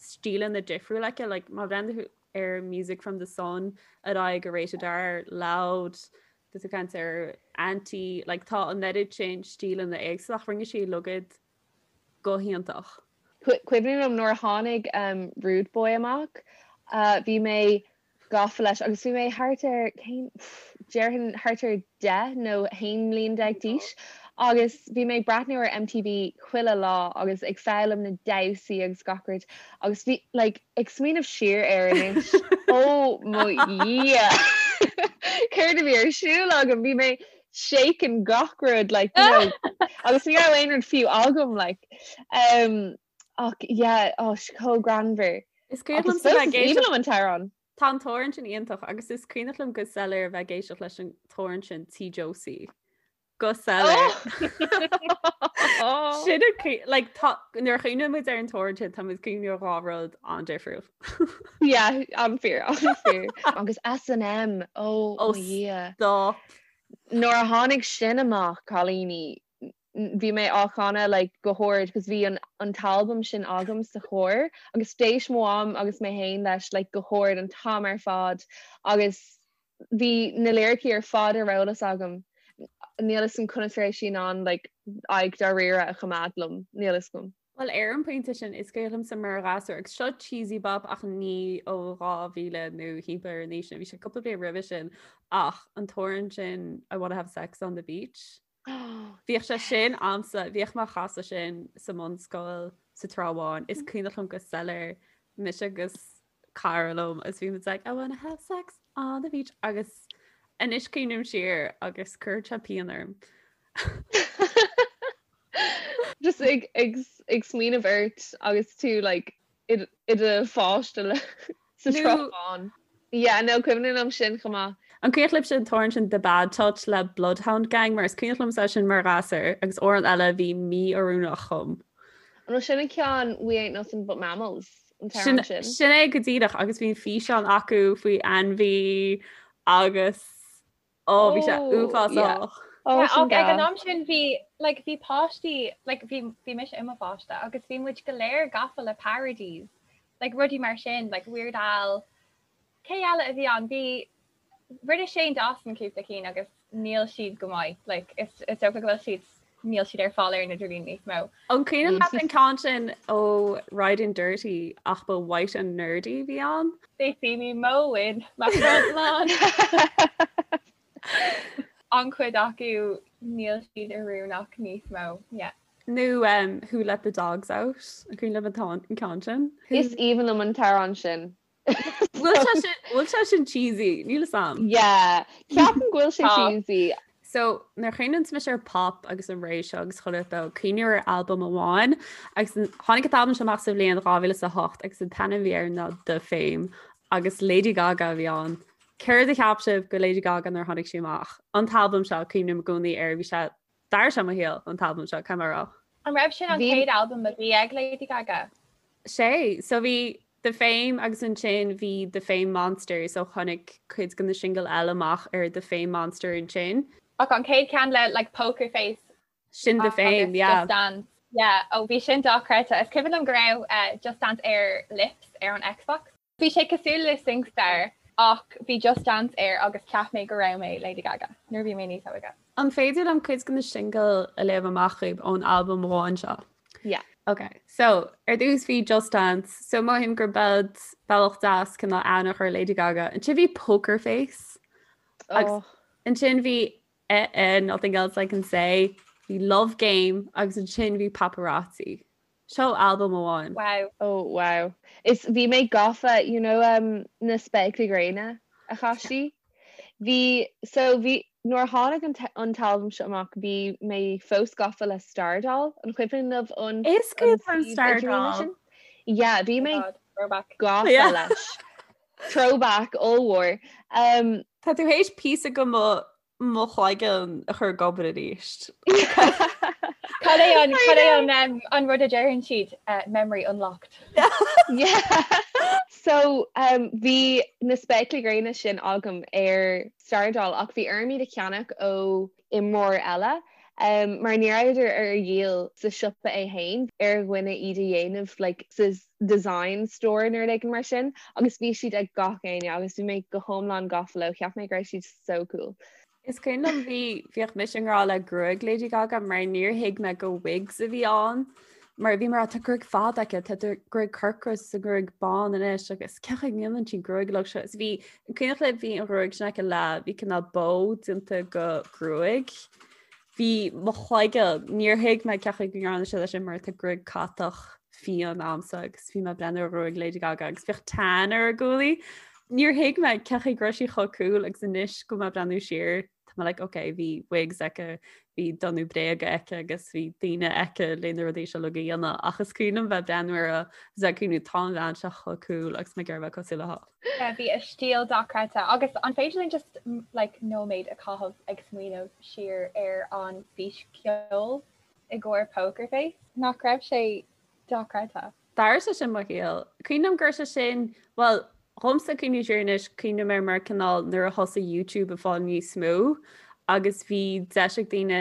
stíleanna difriúla aici, like má bhreathnaíonn tú ar Music from the Sun ar aghaidh go Rated R, Loud, tá tú ag caint ar Anti, like tá an oiread sin stíleanna éagsúla ach rinne sí uilig iad go hiontach. Cuimhin liom nuair a tháinig Rude Boy amach, bhí mé gafa leis agus bhí mé thart ar, cén, déarfainn thart ar 10 nó 11 mbliain d'aois agus bhí mé ag breathnú ar MTV chuile lá agus ag foghlaim na damhsaí agus gach rud agus bhí, like, ag smaoineamh siar air anois, ó mo Dhia! Céard a bhí ar siúl agam? Bhí mé shaking gach rud, like, you know, agus ní raibh aon rud fiú agam, like. Um, Ach yeah, oh, chomh greannmhar. Is cuimhin Agus liomsa fós bheith is ag aoibhinn éisteacht liom an t-amhrán. Tá an t-amhrán sin iontach agus is cuimhneach liom go soiléir a bheith ag éisteacht leis an t-amhrán sin Tí Josie. Go soiléir. Oh! Sin an cuí- like, tá- nuair a chuimhníonn muid ar an t-amhrán sin, tá muid ag cuimhneamh ar dhá rud an-difriúil. Yeah, an-fhíor, an-fhíor. Agus S&M, oh Oh, mo Dhia. stop. Nuair a tháinig sin amach, cailíní, bhí mé á chanadh like go hard cos bhí an an t-albam sin agam sa charr agus d'éist mo mham agus mé féin leis like go hard an t-am ar fad agus bhí na liricí ar fad ar eolas agam. Níl fhios agam conas a raibh sí in ann like aghaidh dáiríre a choimeád liom, níl fhios agam. Bhuel ar an bpointe sin is cuimhin liomsa mar ghasúr agus seo cheesy bop ach ní ó 2000 nó thimpeall ar an aois sin, bhí sé cúpla bliain roimhe sin ach an t-amhrán sin I wanna have sex on the beach. Bhíodh sé sin a'msa, bhíodh mé á chasadh sin sa mbunscoil sa Trá Bháin. Is cuimhneach liom go soiléir mise agus cara liom agus bhí muid like I wanna have sex on the beach agus anois cuimhním siar agus cuireann sé pian orm. Just ag ag ag smaoineamh ort agus tú like i do pháiste sa Trá Bháin. Yeah, no, cuimhin liom sin chomh maith. An cuimhin libhse an t-amhrán sin The Bad Touch le Bloodhound Gang mar is cuimhin liomsa sin mar ghasúr agus amhrán eile a bhí mí-oiriúnach dhom. An bhfuil sin an ceann We Ain't Nothing But Mammals, an t-amhrán sin? Sin é go díreach agus bhí an físeán acu faoi ainmhí agus Ó bhí sé uafásach. Ach ag an am sin bhí like bhí páistí like bhí bhí mise i mo pháiste agus bhí muid go léir gafa le parodies like rudaí mar sin like Weird Al cé eile a bhí ann bhí rinne Shane Dawson cúpla cinn agus níl siad go maith like is is dócha go bhfuil siad níl siad ar fáil ar an idirlíon níos mó. An cuimhin leat an ceann sin ó Riding Dirty ach ba White and Nerdy a bhí ann? They see me mowing my front lawn. An-chuid acu níl siad oiriúnach níos mó. Yeah. Nó um, Who Let the Dogs Out? An cuimhin libh an ceann sin? Is aoibhinn liom an t-amhrán sin. Bhfuil sé sin cheesy, níl fhios a'm. Yeah, ceapaim go bhfuil sé cheesy. So nuair a chuimhníonn mise ar pop agus an ré seo agus chuile rud, cuimhním ar albam amháin agus tháinig an t-albam seo amach sa bhliain 2008 agus an t-ainm a bhí air ná The Fame agus Lady Gaga a bhí ann. Céard a cheap sibh go Lady Gaga nuair a tháinig sí amach? An t-albam seo cuimhním i gcónaí air, bhí sé D'athraigh sé mo shaol, an t-albam seo, caithfidh mé a rá. An raibh sin an chéad albam a bhí ag Lady Gaga? Sea, so bhí The Fame agus ansin bhí The Fame Monster, so tháinig cuid de na singil eile amach ar The Fame Monster ansin. Ach an chéad ceann le like Poker Face Sin The Fame, yeah. Just Dance. Yeah, oh bhí sin dochreidte. Is cuimhin liom go raibh eh, Just Dance ar Lips ar an Xbox. Bhí sé cosúil le SingStar ach bhí Just Dance air agus cheap mé go raibh mé Lady Gaga nuair a bhí mé níos óige. An féidir liom cuid de na singil a léamh amach dhaoibh ón albam amháin seo? Yeah. Ok, so ar dtús bhí Just Dance, so mothaím gur bead bealach deas cineál aithne a chur ar Lady Gaga. Ansin bhí Poker Face. Agus ansin bhí Eh Eh, Nothing Else I Can Say. bhí Love Game agus ansin bhí Paparazzi. Seo albam amháin. Wow. Oh wow. Is bhí mé gafa, you know um, na spéaclaí gréine a chaith sí. Bhí, so bhí, nuair a tháinig an an t-albam seo amach bhí mé fós gafa le Stardoll, an cuimhin libh an Is cuimhin liom Stardoll. Yeah, bhí mé gafa Yeah. leis. Throwback ollmhór. Um, Tá tú théis píosa de mo mo chloigeann a chur ag obair arís. Cad é an cad é an um, an rud a deireann siad uh, memory unlocked. Yeah. So um, bhí na spéaclaí gréine sin agam ar Stardoll ach bhí orm iad a cheannach ó imreoir eile um, mar ní rabhadar ar dhíol sa siopa é féin ar dhuine iad a dhéanamh like, sa design store nó rud éigin mar sin agus bhí siad ag gach éinne agus bhí mé go hiomlán gafa leo, cheap mé go raibh siad so cool. Is cuimhin liom bhí bhíodh mise i ngrá le gruaig Lady Gaga mar níor thuig mé go wigs a bhí ann mar bhí mar tá gruaig fada aici tá gruaig corcra is gruaig bán anois agus cén chaoi a ndéanann sí gruaig uilig seo is bhí an cuimhneach libh bhí an ghruaig sin aici le bhí cineál bó déanta go gruaig. Bhí mo chloigeann, níor thuig mé cén chaoi go ndearna siad é sin mar tá gruaig catach fiáin a'msa agus bhí mé ag breathnú ar ghruaig Lady Gaga agus bhíodh tan ar a guaillí. Níor thuig mé cén chaoi go raibh sí chomh cool agus anois go mé ag breathnú siar tá mé like ok bhí wigs aici, bhí donnú bréaga aici agus bhí daoine aici le na rudaí seo uilig a dhéanamh ach is cuimhin liom bheith ag breathnú uirthi agus ag cuimhniú tá an bhean seo chomh cool agus mé ag iarraidh bheith cosúil léi. Yeah, bhí a stíl dochreidte agus an féidir linn just like nóiméad a chaitheamh ag smaoineamh siar ar an bhfíscheol i gcomhair Poker Face? Nach raibh sé dochreidte? D'athraigh sé sin mo shaol. Cuimhin liom go raibh sé sin, bhuel, dhomsa cuimhniú siar anois, cuimhním air mar cineál nuair a thosaigh YouTube ag fáil níos mó agus bhí deis ag daoine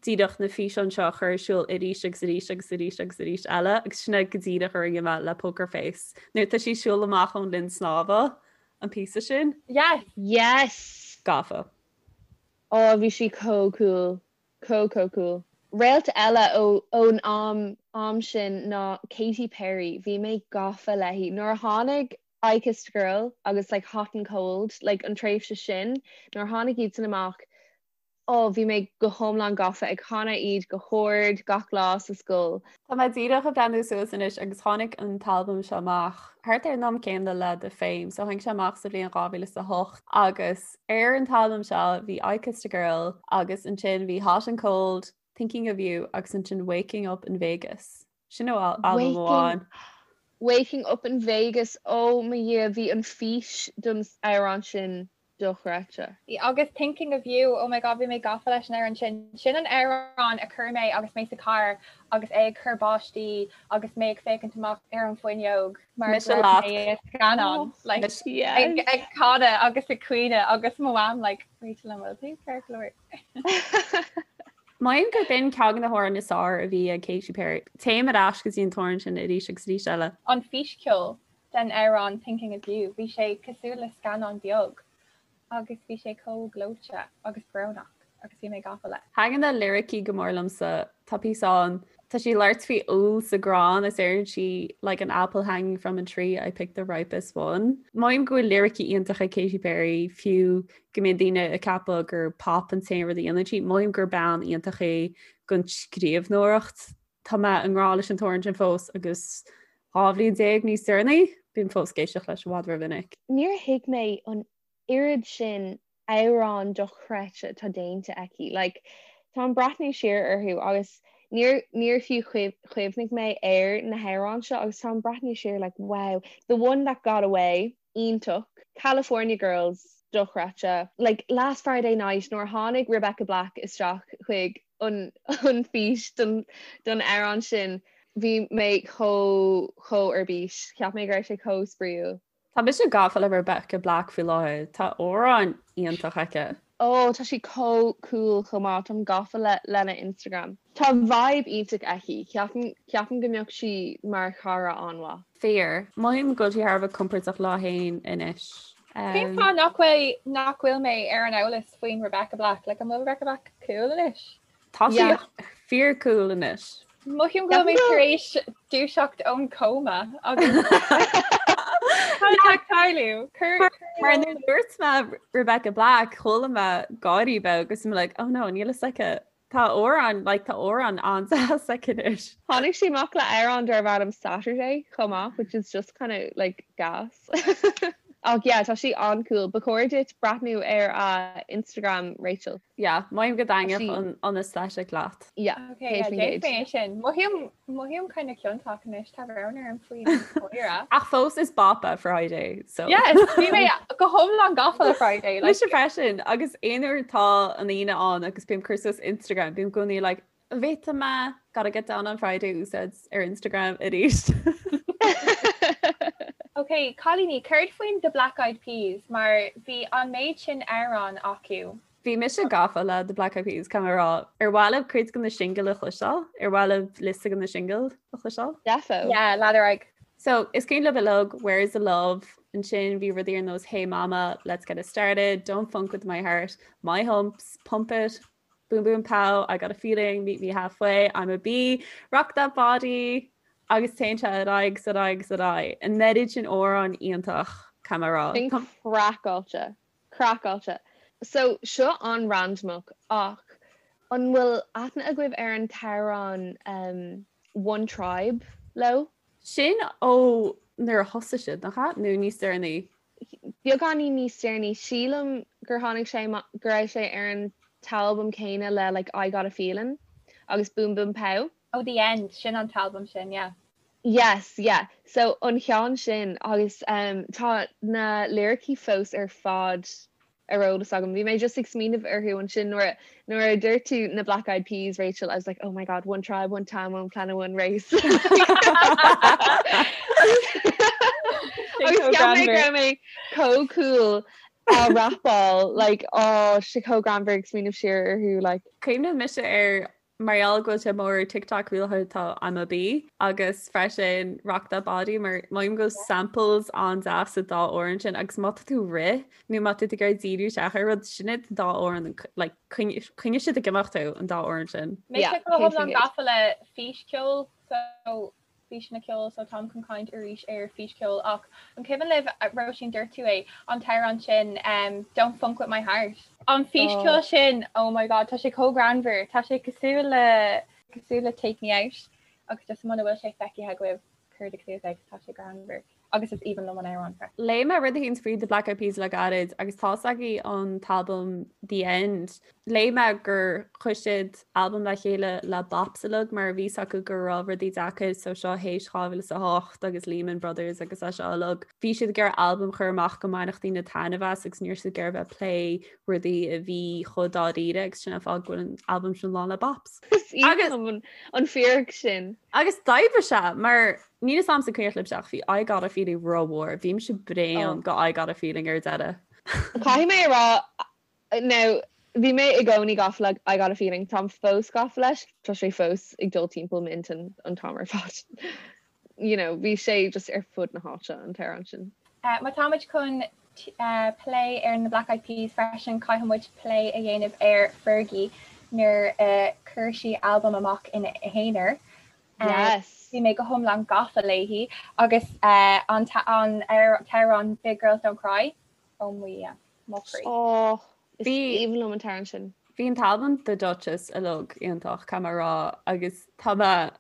díreach na físeáin seo a chur ar siúl arís agus arís agus arís agus arís eile agus sin é go díreach a rinne mé le Poker Face. Nuair atá sí ag siúl amach ón linn snámha, an píosa sin. Yes! Yes! Gafa. Ó bhí sí chomh cool. Chomh chomh cool. Réalt eile ó ón am am sin ná Katy Perry. Bhí mé gafa léi. Nuair a tháinig I Kissed a Girl agus like Hot and Cold, like an tréimhse sin, nuair a tháinig iad san amach, Ó, bhí mé go hiomlán gafa ag canadh iad go hard gach lá sa scoil. Tá mé díreach ag breathnú suas anois agus tháinig an t-albam seo amach thart ar an am céanna le The Fame, so tháinig sé amach sa bhliain 2008 agus ar an t-albam seo bhí I Kissed a Girl agus ansin bhí Hot and Cold, Thinking of You agus ansin Waking Up in Vegas. Sin ó albam amháin. Waking Up in Vegas, ó mo Dhia, bhí an fís don amhrán sin dochreidte. Agus Thinking of You, oh my god bhí mé gafa leis an amhrán sin. Sin an amhrán a chuir mé agus mé sa carr agus é ag cur báistí agus mé ag féachaint amach ar an bhfuinneog mar Mise go raibh leat. mé i scannán like, Mise. ag, ag canadh agus ag caoineadh agus mo mham like Rachel an bhfuil tú ceart go leor? Mothaím gur b'in ceann de na hamhráin is fearr a bhí ag Katy Perry. Téim ar ais go dtí an t-amhrán sin arís agus arís eile. An físcheol den amhrán Thinking of You, bhí sé cosúil le scannán beag agus bhí sé chomh gleoite agus brónach agus bhí mé gafa leis. Taitníonn na liricí go mór liomsa. Tá píosa ann, tá sí ag labhairt faoi úll sa gcrann is deireann sí like an apple hanging from a tree, I picked the ripest one. Mothaím go bhfuil liricí iontacha ag Katy Perry, fiú go mbíonn daoine ag ceapadh gur pop an t-aon rud a dhéanann sí, mothaím gur bean iontach í don scríbhneoireacht. Tá mé i ngrá leis an t-amhrán sin fós agus 12 bhliain níos deireanaí, bím fós ag éisteacht leis i bhfad rómhinic. Níor thuig mé an oiread sin amhrán dochreidte atá déanta aici. Like, táim ag breathnú siar orthu agus níor níor fiú chuimhnigh mé ar na hamhráin seo agus táim ag breathnú siar like wow, The One That Got Away, iontach, California Girls, dochreidte, like Last Friday Night nuair a tháinig Rebecca Black isteach chuig an an fís don don amhrán sin bhí mé chomh chomh ar bís. Cheap mé go raibh sé chomh spraíúil. Tá mise gafa le Rebecca Black faoi láthair. Tá amhrán iontach aici. Oh tá sí chomh cool chomh maith, táim gafa le lena Instagram. Tá vibe iontach aici, ceapaim ceapaim go mbeadh sí mar chara an-mhaith. Fíor. Mothaím go bhfuil sí thar a bheith compordach léi féin anois. Cén fáth nach bhfuil nach bhfuil mé ar an eolas faoin Rebecca Black? Like an bhfuil Rebecca Black cool anois? Tá sí fíor cool anois. Mothaím go bhfuil mé tar éis dúiseacht ón cóma agus Cad atá ag tarlú? Mar nuair a dúirt mé Rebecca Black chuala mé gáirí beag agus I'm like oh no níl fhios aici. Tá amhrán, like tá amhrán an-deas aici anois. Tháinig sí amach le amhrán darb ainm Saturday chomh maith, which is just kind of like gas. Ach yeah, tá sí an-cool. Ba chóir duit breathnú ar a Instagram, Rachel. Yeah, mothaím go dtaitneodh an an aesthetic leat. Yeah, Okay, yeah, déanfaidh mé sin. Mothaím mothaím kind of ciontach anois, tá brón orm faoin chomhaire. Ach fós is bop é Friday, so. Yes, bhí mé go hiomlán gafa le Friday. Like, Mise freisin, agus aon uair tá an Aoine ann agus bím ag cur suas Instagram, bím i gcónaí like, bhféadfadh mé gotta get down on Friday úsáid ar Instagram arís. Ok, cailíní, céard faoin The Black Eyed Peas mar bhí an méid sin amhrán acu. Bhí mise gafa le The Black Eyed Peas, caithfidh mé a rá. Ar mhaith libh cuid de na singil a chloisteáil? Ar mhaith libh liosta de na singil a chloisteáil? Defo. Yeah, lean ar aghaidh. So, is cuimhin libh uilig Where's the Love? Ansin bhí rudaí ar nós Hey Mama, Let's Get It Started, Don't Funk With My Heart, My Humps, Pump It, Boom Boom Pow, I Got a Feeling, Meet Me Halfway, I'm a Bee, Rock That Body, agus téann sé ar aghaidh 's ar aghaidh 's ar aghaidh. An oiread sin amhrán iontach, caithfidh mé a rá. Sin craiceáilte. Craiceáilte. So, seo an-randamach ach an bhfuil aithne agaibh ar an t-amhrán um One Tribe leo? Sin ó nuair a thosaigh siad, nach ea? Nó níos deireanaí? Beagáinín níos deireanaí. Sílim gur tháinig sé go raibh sé ar an t-albam céanna le like I Got a Feeling agus Boom Boom Pow. Oh The End, sin an t-albam sin, yeah. Yes, yeah. So an cheann sin agus um tá na liricí fós ar fad ar eolas agam. Bhí mé just ag smaoineamh orthu ansin nuair nuair a dúirt tú na Black Eyed Peas, Rachel, I was like, oh my god, one tribe, one time, one planet, one race. Agus cheap mé go raibh mé chomh cool á rapáil, like, oh, sé chomh greannmhar ag smaoineamh siar orthu, like. Cuimhníonn mise ar Mar gheall go bhfuil sé mór ar TikTok faoi láthair tá I'm a Bee agus freisin Rock That Body mar mothaím go bhfuil samples an-deas sa dá amhrán sin agus má tá tú ag rith nó má tá tú ag iarraidh díriú isteach ar rud sin iad an dá amhrán like coinneoidh siad ag imeacht thú an dá amhrán sin. Mise go hiomlán gafa le físcheol so físeanna ceoil so táim chun caint arís ar físcheol ach an cuimhin libh, Róisín dúirt tú é, an t-amhrán sin Don't Funk With My Heart? An físcheol sin, oh my god, tá sé chomh greannmhar, tá sé cosúil le cosúil le Take Me Out agus just muna bhfuil sé feicthe agaibh cuirigí suas é 'cause tá sé greannmhar. Agus is aoibhinn liom an amhrán freisin. Léigh mé rud éicint faoi The Black Eyed Peas le gairid agus tá's agaibh an t-albam The End. Léigh mé gur chuir siad albam le chéile le bops uilig mar bhí 's acu go raibh rudaí deacair so seo théis 2008 agus Lehman Brothers agus é seo uilig. Bhí siad ag iarraidh albam a chur amach go mbainfeadh daoine taitneamh as agus ní raibh siad ag iarraidh bheith ag plé rudaí a bhí chomh dáiríre agus sin an fáth go bhfuil an albam sin lán le bops. Is aoibhinn liom an fíric sin. Agus d'oibrigh sé mar Níl 'fhios a'msa an cuimhin libhse ach bhí I Got a Feeling rómhór. Bhí mise bréan go I Got a Feeling ar deireadh. Caithfidh mé a rá, now, bhí mé i gcónaí gafa le I Got a Feeling, táim fós gafa leis, tá sé fós ag dul timpeall m'intinn an t-am ar fad. You know, bhí sé just ar fud na háite an t-amhrán sin. Má táimid chun plé ar na Black Eyed Peas freisin, caithfidh muid plé a dhéanamh ar Fergie nuair a chuir sí albam amach ina haonar. Yes. Bhí mé go hiomlán gafa léi agus an t-amhrán Big Girls Don't Cry, oh my yeah, mo chroí. Oh, is aoibhinn liom an t-amhrán sin. Bhí an t-albam The Dutchess uilig iontach, caithfidh mé a rá, agus tá mé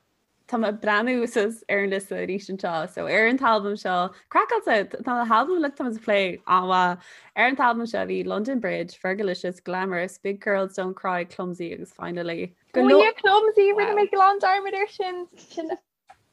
tá mé ag breathnú suas ar an liosta arís anseo, so ar an t-albam seo, craiceáilte, tá na halbaim uilig tá muid ag plé an-mhaith. Ar an t-albam seo bhí London Bridge, Fergalicious, Glamorous, Big Girls Don't Cry, Clumsy agus Finally. Go leor Clumsy, rinne mé glan dearmad air sin, sin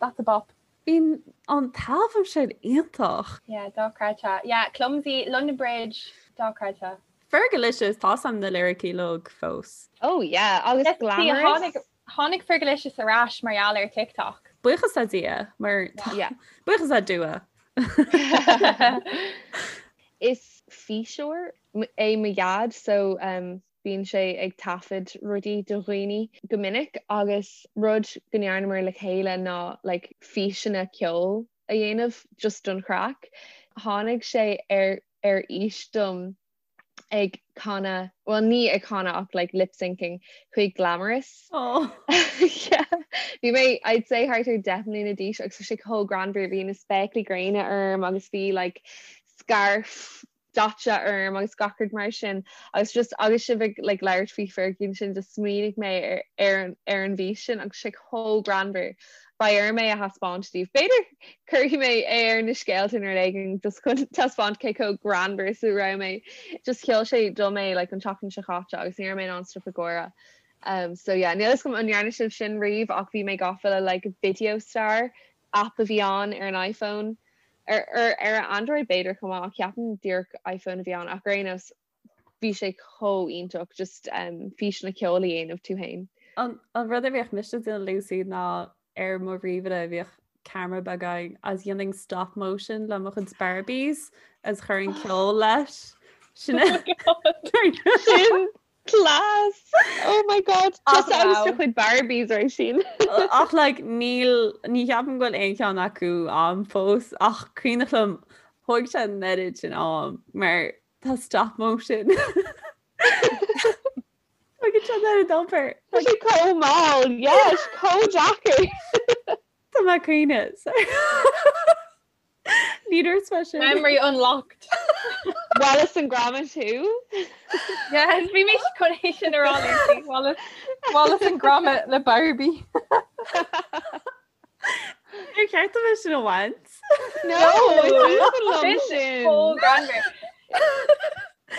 that's a bop. Bhí an t-albam sin iontach. Yeah, dochreidte. Yeah, Clumsy, London Bridge, dochreidte. Fergalicious, tá 'fhios a'm na liricí uilig fós. Oh yeah, agus Glamorous. Tháinig Fergalicious ar ais mar gheall ar TikTok. Buíochas le Dia, mar Yeah. buíochas le Dua. Is físeoir é mo dhaid so um, Bíonn sé ag taifead rudaí do dhaoine go minic agus rud go ndearnamar le chéile ná like físeanna ceoil a dhéanamh just don chraic. Tháinig sé ar ar fhís dom ag canadh, bhuel ní ag canadh ach like lip syncing chuig Glamorous. Oh. Yeah. Bhí mé I'd say thart ar 10 mbliana d'aois agus bhí sé chomh greannmhar, bhí na spéaclaí gréine orm agus bhí like scarf. daite orm agus gach rud mar sin agus just agus sibh ag like labhairt faoi Fergie ansin just smaoinigh mé ar ar an ar an bhfís sin agus sé chomh greannmhar. Beidh orm é a thaispeáint daoibh. B'fhéidir cuirfidh mé é ar na scéalta nó rud éigin just chun taispeáint cé chomh greannmhar is a raibh mé. Just sheol sé dom é like an tseachtain seo chaite agus ní raibh mé in ann stop ag gáire. Um so yeah níl fhios agam an ndearna sibh sin riamh ach bhí mé gafa le like Video Star app a bhí ann ar an iPhone, ar ar ar Android b'fhéidir chomh maith ach ceapaim díreach iPhone a bhí ann ach ar aon nós bhí sé chomh iontach just um, físeanna ceoil a dhéanamh tú féin. An, an rud a bhíodh mise ag déanamh Lucy ná ar mo ríomhaire bhíodh ceamara beag ann agus dhéanainn stop motion le mo chuid Barbies agus chuirfinn ceol leis. Sin Sin Class! Oh my god! Tusa agus do chuid Barbies Róisín. Ach like níl, ní cheapaim go bhfuil aon cheann acu a'm fós ach cuimhneach liom thóg sé an oiread sin am mar tá stop motion. Tógann sé an oiread obair. Tá sé chomh mall, yes, chomh deacair. Tá mé ag caoineadh. Ní dúirt mé sin. Memory unlocked. Wallace and Gromit thú? Yes, bhí mé chun é sin a rá Lucy. Wallace, Wallace and Gromit le Barbie. Ar cheart dom é sin a bhaint? No, is aoibhinn liom sin. Chomh greannmhar.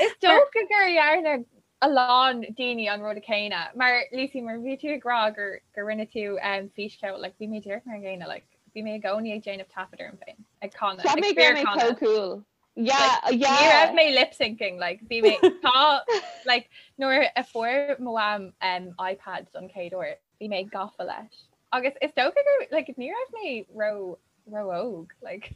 Is dócha gur dhearna a lán daoine an rud céanna. Mar Lucy, mar bhí tú ag rá gur gur rinne tú um, físcheol, like, bhí mé díreach mar an gcéanna, like, Bhí mé i gcónaí ag déanamh taifead orm féin ag canadh. Cheap mé go raibh mé chomh cool. Yeah, yeah. Ní raibh mé lip syncing, like bhí mé tá like nuair a fuair mo mham um, iPad don chéad uair, bhí mé gafa leis. Agus is dócha gur like ní raibh mé ró ró óg like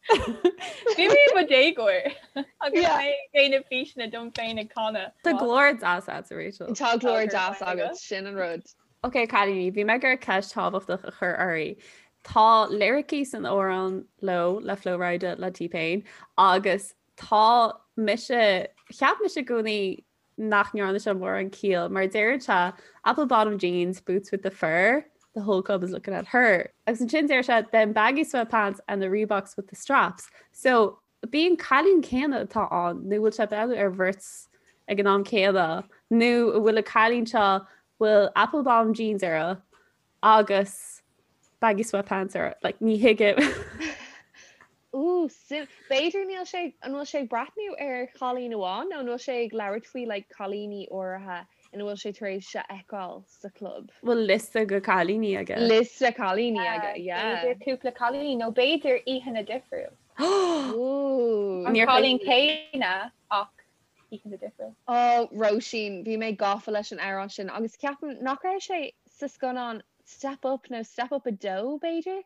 Bhí mé i mo dhéagóir agus Yeah. mé ag déanamh físeanna dom féin ag canadh. Tá glór deas agat, Rachel. Tá glór deas agat, sin an rud. Ok cailíní, bhí mé ag iarraidh ceist thábhachtach a chur oraibh. Tá liricí san amhrán Low le Flo Rida le T-Pain agus tá mise, cheap mise i gcónaí nach ndearna sé mórán ciall mar deireann sé apple bottom jeans, boots with the fur, the whole club is looking at her. Agus ansin deir sé them baggy sweatpants and the Reeboks with the straps. So Ab é an cailín céanna atá ann nó bhfuil sé ag breathnú ar bheirt ag an am céanna nó an bhfuil an cailín seo bhfuil apple bottom jeans uirthi agus baggy sweatpants uirthi like ní thuigim. Ooh, sim. B'fhéidir níl sé, an bhfuil sé ag breathnú ar chailín amháin nó an bhfuil sé ag labhairt faoi like cailíní áirithe ina bhfuil sé tar éis a fheiceáil sa chlub? Bhfuil liosta de cailíní aige? Liosta cailíní aige, yeah. B'fhéidir cúpla cailíní nó b'fhéidir oícheanta difriúil. Ooh. An cailín céanna ach oícheanta difriúil. Oh, Róisín, bhí mé gafa leis an amhrán sin agus ceapaim nach raibh sé sa scannán Step Up nó Step Up 2 b'fhéidir?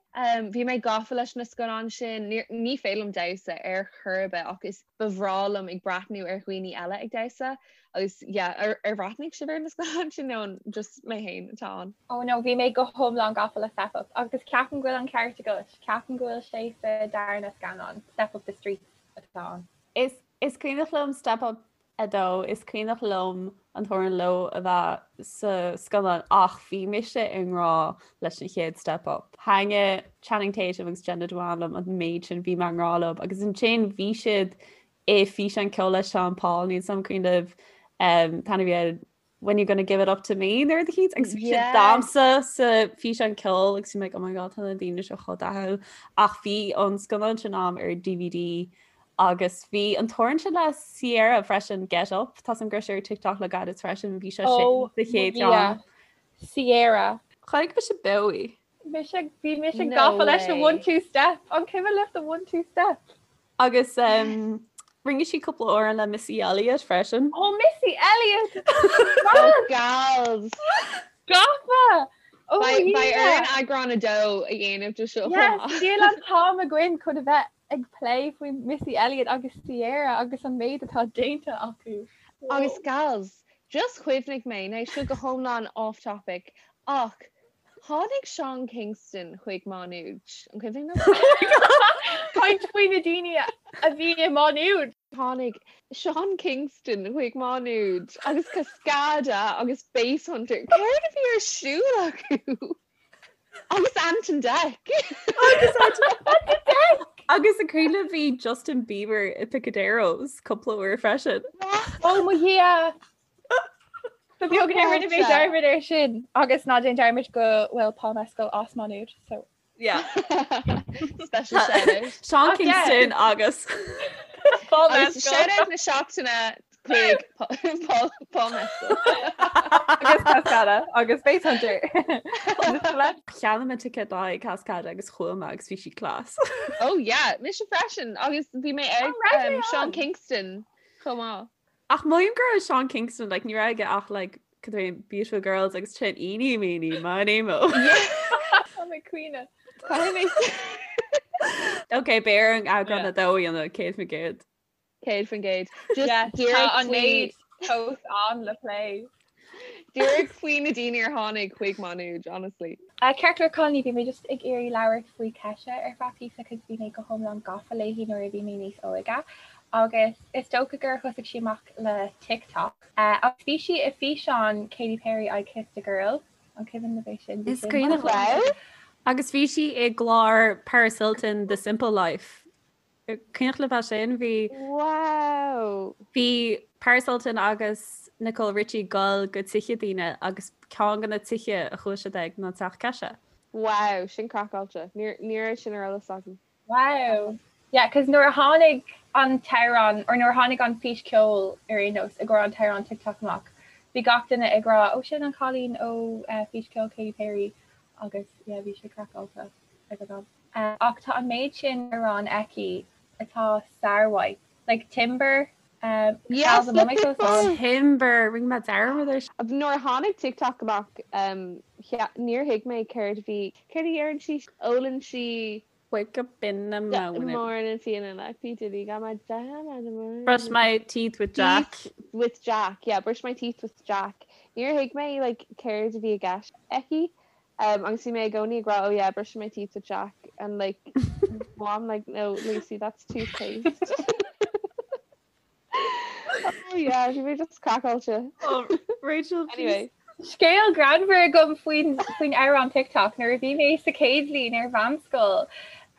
Bhí mé gafa leis na scannáin sin. Ní féidir liom damhsa ar chor ar bith ach is ba bhreá liom ag breathnú ar dhaoine eile ag damhsa agus yeah, ar ar bhreathnaigh sibh ar na scannáin sin nó an just mé féin atá ann? Oh no, bhí mé go hiomlán gafa le Step Up agus ceapaim go bhfuil an ceart agat, ceapaim go bhfuil sé sa darna scannán, Step Up The Streets atá ann. Is is cuimhneach liom Step Up 2, Is cuimhneach liom an t-amhrán Low a bheith sa scannán ach bhí mise i ngrá leis an chéad Step Up. Thaitnigh Channing Tatum agus Jenna Dewan liom an méid sin, bhí mé i ngrá leo agus ansin bhí siad i físeán ceoil le Sean Paul, níl 's a'm an cuimhin libh um, tá bhí When you gonna give it up to me nuair a chíd agus bhí siad damhsa sa físeán ceoil agus bhí mé like, oh my god tá na daoine seo chomh dathúil ach bhí an scannán sin a'm ar DVD agus bhí an t-amhrán sin le Ciara freisin Get Up tá an gris ar TikTok le gairid freisin bhí sé sin Oh, sa chéad yeah. cheann. Ciara. Chonaic mise beo í. Mise bhí mise No gafa leis an way. one two step. An cuimhin libh the one two step? Agus rinne sí cúpla amhrán le Missy Elliott freisin. Oh Missy Elliott! Oh gals! Gafa! Oh Beidh yeah! orainn eagrán a dó a dhéanamh de seo chomh Yes, maith. níl an t-am againn chun a bheith ag plé faoi Missy Elliott agus Ciara agus an méid atá déanta acu. Agus gals, just chuimhnigh mé, now seo go hiomlán off topic, ach Tháinig Sean Kingston chuig Má Nuad. An cuimhin libh? Caint faoi na daoine a bhí i Má Nuad. Tháinig Sean Kingston chuig Má Nuad agus Cascada agus Basshunter. Céard a bhí ar siúl acu? Agus Ant and Dec. Agus Ant and Dec! Agus an cuimhin libh bhí Justin Bieber i Picaderos cúpla uair freisin. Oh mo Dhia! Ba bheag nár rinne mé dearmad air sin agus ná déan dearmad go bhfuil Paul Mescal as Má Nuad so. Yeah. Special shout out. Sean Kingston agus Paul Agus Mescal. shout out na seachtaine chuig Paul Paul Mescal. Agus Cascada agus Basshunter. Cheannaigh mé ticéad do Cascada agus chuaigh mé agus bhí sí class. Oh yeah, mise freisin agus bhí mé ag An raibh um, mé Sean ann? Kingston chomh maith. Ach mothaím go raibh Sean Kingston like ní raibh aige ach like cad é Beautiful Girls agus sin Eeny Meeny Miny Mo. Tá mé caoineadh. Caithfidh mé Ok, beidh orainn eagrán a dó a dhéanamh 100%. 100%. Just Yeah, tá díreach an faoi méid fós ann le plé. díreach faoi na daoine ar tháinig chuig Má Nuad, honestly. Ceart go leor cailíní, bhí mé just ag iarraidh labhairt faoi Kesha ar feadh píosa cos bhí mé go hiomlán gafa léi nuair a bhí mé níos óige agus is dócha gur thosaigh sí amach le TikTok. Agus bhí sí i físeán Katy Perry I Kissed a Girl, an cuimhin libh é sin? Bhí Is sin cuimhin liom. Agus bhí sí i gclár Paris Hilton The Simple Life. Cuimhneach libh é sin? Bhí. Wow! Bhí Paris Hilton agus Nicole Richie ag dul go tithe daoine agus ceann de na tithe a chuaigh siad ag ná teach Kesha. Wow, sin craiceáilte. Ní raibh sin ar eolas agam. Wow! Yeah, cos nuair a tháinig an t-amhrán, or nuair a tháinig an fís ceoil ar aon nós i gcomhair an t-amhrán TikTok amach, bhí gach duine ag rá, oh sin an cailín ó fís ceoil Katy Perry agus yeah bhí sé craiceáilte ag an am. Ach tá an méid sin amhrán aici atá sármhaith. Like Timber, Yes, Gals, an bhfuil mé fós ann? Timber, rinne mé dearmad air. Nuair a tháinig TikTok amach, níor thuig mé céard a bhí, céard a deireann sí? Ólann sí. Wake up in the morning. Morning feeling like P Diddy got my jam. Brush my teeth with Jack. Teeth with Jack, yeah, brush my teeth with Jack. Níor thuig mé like céard a bhí i gceist aici. Um, agus bhí mé i gcónaí ag rá, oh yeah, brushing my teeth with Jack, and like, mom like, no, Lucy, that's toothpaste. oh yeah, bhí mé just craiceáilte. Oh, Rachel, Anyway. Scéal greannmhar agam faoin faoin amhrán TikTok nuair a bhí mé sa chéad bhliain ar mheánscoil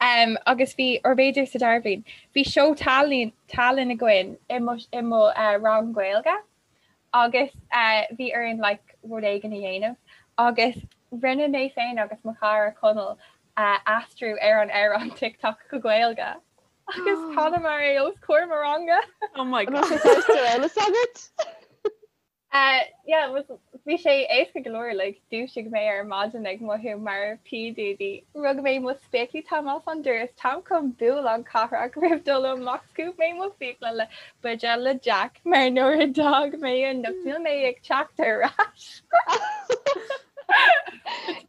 um, agus bhí, or b'fhéidir sa dara bhliain, bhí seó tallann tallann againn i mo, i mo uh, rang Gaeilge. agus bhí orainn like rud éigin a dhéanamh agus rinne mé féin agus mo chara Conall aistriú ar an amhrán TikTok go Gaeilge agus chanamar é os comhair mo ranga. Oh my God. An bhfuil sé fós ar eolas agat? Yeah, bhí sé éasca go leor like dhúisigh mé ar maidin ag mothú mar P Diddy. Rug mé mo spéaclaí táim as an doras táim chun bualadh cathrach roimh dul amach scuab mé mo fiacla le buidéal le Jack mar nuair a d'fhág mé anocht níl mé ag teacht ar ais.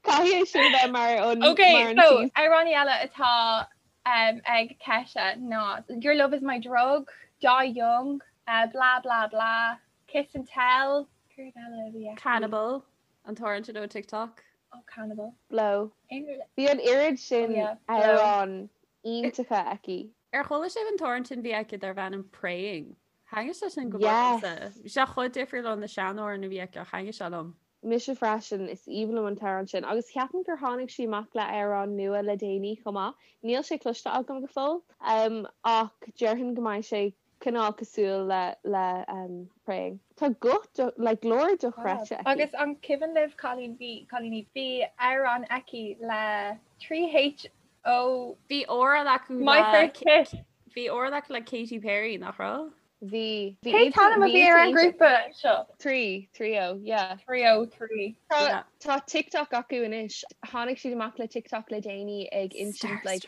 Caithfidh é sin a bheith mar an Ok, mar an so tús. amhráin eile atá um, ag Kesha ná Your Love Is My Drug, Die Young, uh, Blah Blah Blah, Kiss and Tell, céard eile a bhí aici? Cannibal, an t-amhrán sin ó TikTok. Oh, Cannibal. Blow. Aon rud Bhí an oiread Oh sin yeah, Blow. amhrán iontacha aici. Ar chuala sibh an t-amhrán sin a bhí aici darbh ainm Praying? Thaitnigh sé sin go mór liomsa. Yes! Bhí sé chomh difriúil ó na seanamhráin a bhí aici ach thaitnigh sé liom. Mise freisin, is aoibhinn liom an t-amhrán sin. Agus ceapaim gur tháinig sí amach le amhrán nua le déanaí chomh maith. Níl sé cloiste agam go fóill, ach déarfainn go mbeidh sé cineál cosúil le le Praying. Tá guth like glór dochreidte aici. Agus an cuimhin libh cailín bhí cailíní bhí amhrán aici le 3H O. Bhí amhrán acu My le first kiss. Bhí amhrán acu le Katy Perry, nach raibh? Bhí. Bhí Cén t-ainm a bhí ar an ngrúpa seo? 3, 3O, yeah. 3O, 3. Tá tá TikTok acu anois. Tháinig siad amach le TikTok le déanaí ag insint like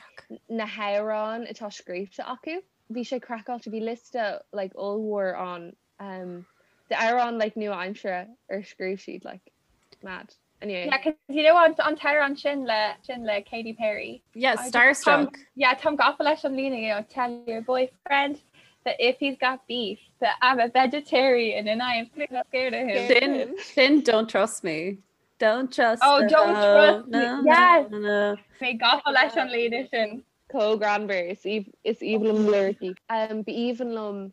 na hamhráin atá scríofa acu. Bhí sé craiceáilte, bhí liosta like ollmhór ann um d'amhráin like nua-aimsire ar scríobh siad like mad. Anyway. Yeah, cause you know an an t-amhrán sin le sin le Katy Perry. Yeah, I just Starstruck. Táim yeah, táim gafa leis an líne, you know, tell your boyfriend that if he's got beef that I'm a vegetarian and I am scared of him. Scared of him. Sin sin don't trust me. Don't trust Oh, the don't hoe. trust me. No, no, Yes. no, no. Mé gafa leis an líne sin. Chomh greannmhar, is is aoibhinn liom na liricí. Ba aoibhinn liom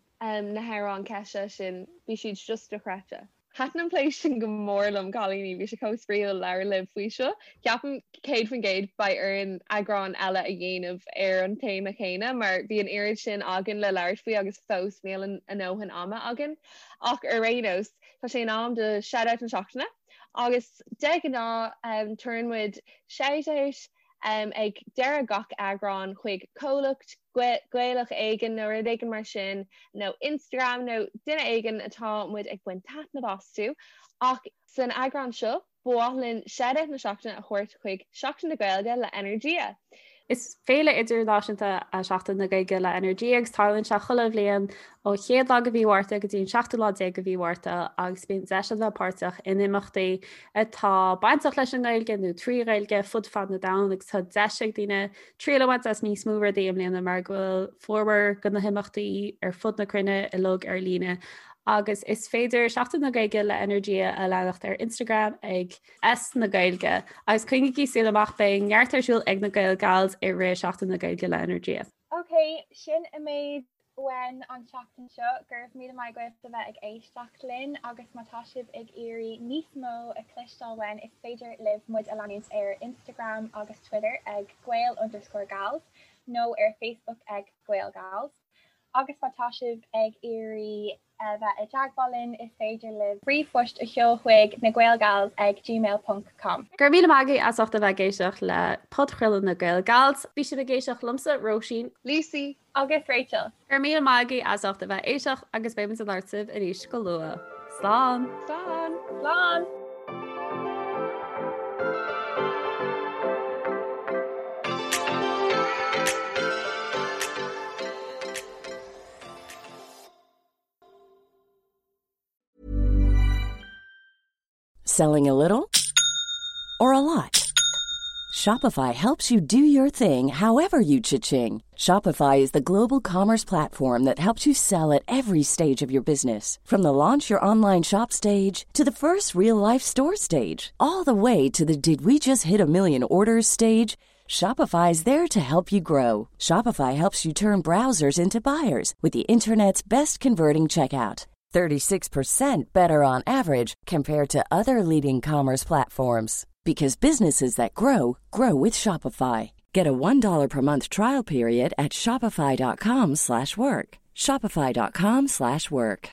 na hamhráin Kesha sin, bhí siad just dochreidte. Thaitin an plé sin go mór liom, cailíní, bhí sé chomh spraíúil labhairt libh faoi seo. Ceapaim 100% beidh orainn eagrán eile a dhéanamh ar an téama chéanna mar bhí an oiread sin againn le labhairt faoi agus fós níl a ndóthain ama againn. Ach ar aon nós, tá sé in am do Shout-Out na Seachtaine agus de ghnáth tugann muid shout-out ag deireadh gach eagrán chuig comhlacht Gaelach éigin nó rud éigin mar sin nó Instagram nó duine éigin atá muid ag baint taitneamh astu ach san eagrán seo ba mhaith linn shout-out na seachtaine a thabhairt chuig Seachtain na Gaeilge le Energia. Is féile idirnáisiúnta é Seachtain na Gaeilge le Energia agus tarlaíonn sé chuile bhliain ó chéad lá de mhí Mhárta go dtí an seachtú lá déag de mhí Mhárta agus bíonn deis ann bheith páirteach in imeachtaí atá bainteach leis an nGaeilge nó trí Ghaeilge fud fad na domhan agus tá deis ag daoine triail a bhaint as níos mó rudaí i mbliana mar go bhfuil formhór de na himeachtaí ar fud na cruinne uilig ar líne agus is féidir Seachtain na Gaeilge le Energia a leanacht ar Instagram ag S na Gaeilge agus coinnígí súil amach beidh neart ar siúl ag na Gael Gals i rith Seachtain na Gaeilge le Energia. Ok, sin an méid uainn an tseachtain seo. Go raibh míle maith agaibh a bheith ag éisteacht linn agus má tá sibh ag iarraidh níos mó a chloisteáil uainn is féidir libh muid a leanúint ar Instagram agus Twitter ag Gael underscore Gals nó ar Facebook ag Gael Gals. Agus má tá sibh ag iarraidh a bheith i dteagmháil linn is féidir libh ríomhphost a sheoladh chuig nagaelgals ag gmail ponc com. Go raibh míle maith agaibh as ucht a bheith ag éisteacht le podchraoladh na Gael Gals. Bhí sibh ag éisteacht liomsa, Róisín. Lucy. Agus Rachel. Go raibh míle maith agaibh as ucht a bheith ag éisteacht agus beidh muid ag labhairt libh arís go luath. Slán! Slán! Slán! Selling a little or a lot? Shopify helps you do your thing however you cha-ching. Shopify is the global commerce platform that helps you sell at every stage of your business. From the launch your online shop stage to the first real life store stage, all the way to the did we just hit a million orders stage. Shopify is there to help you grow. Shopify helps you turn browsers into buyers with the internet's best converting checkout. 36% better on average compared to other leading commerce platforms because businesses that grow grow with Shopify. Get a $1 per month trial period at shopify.com/work. shopify.com/work.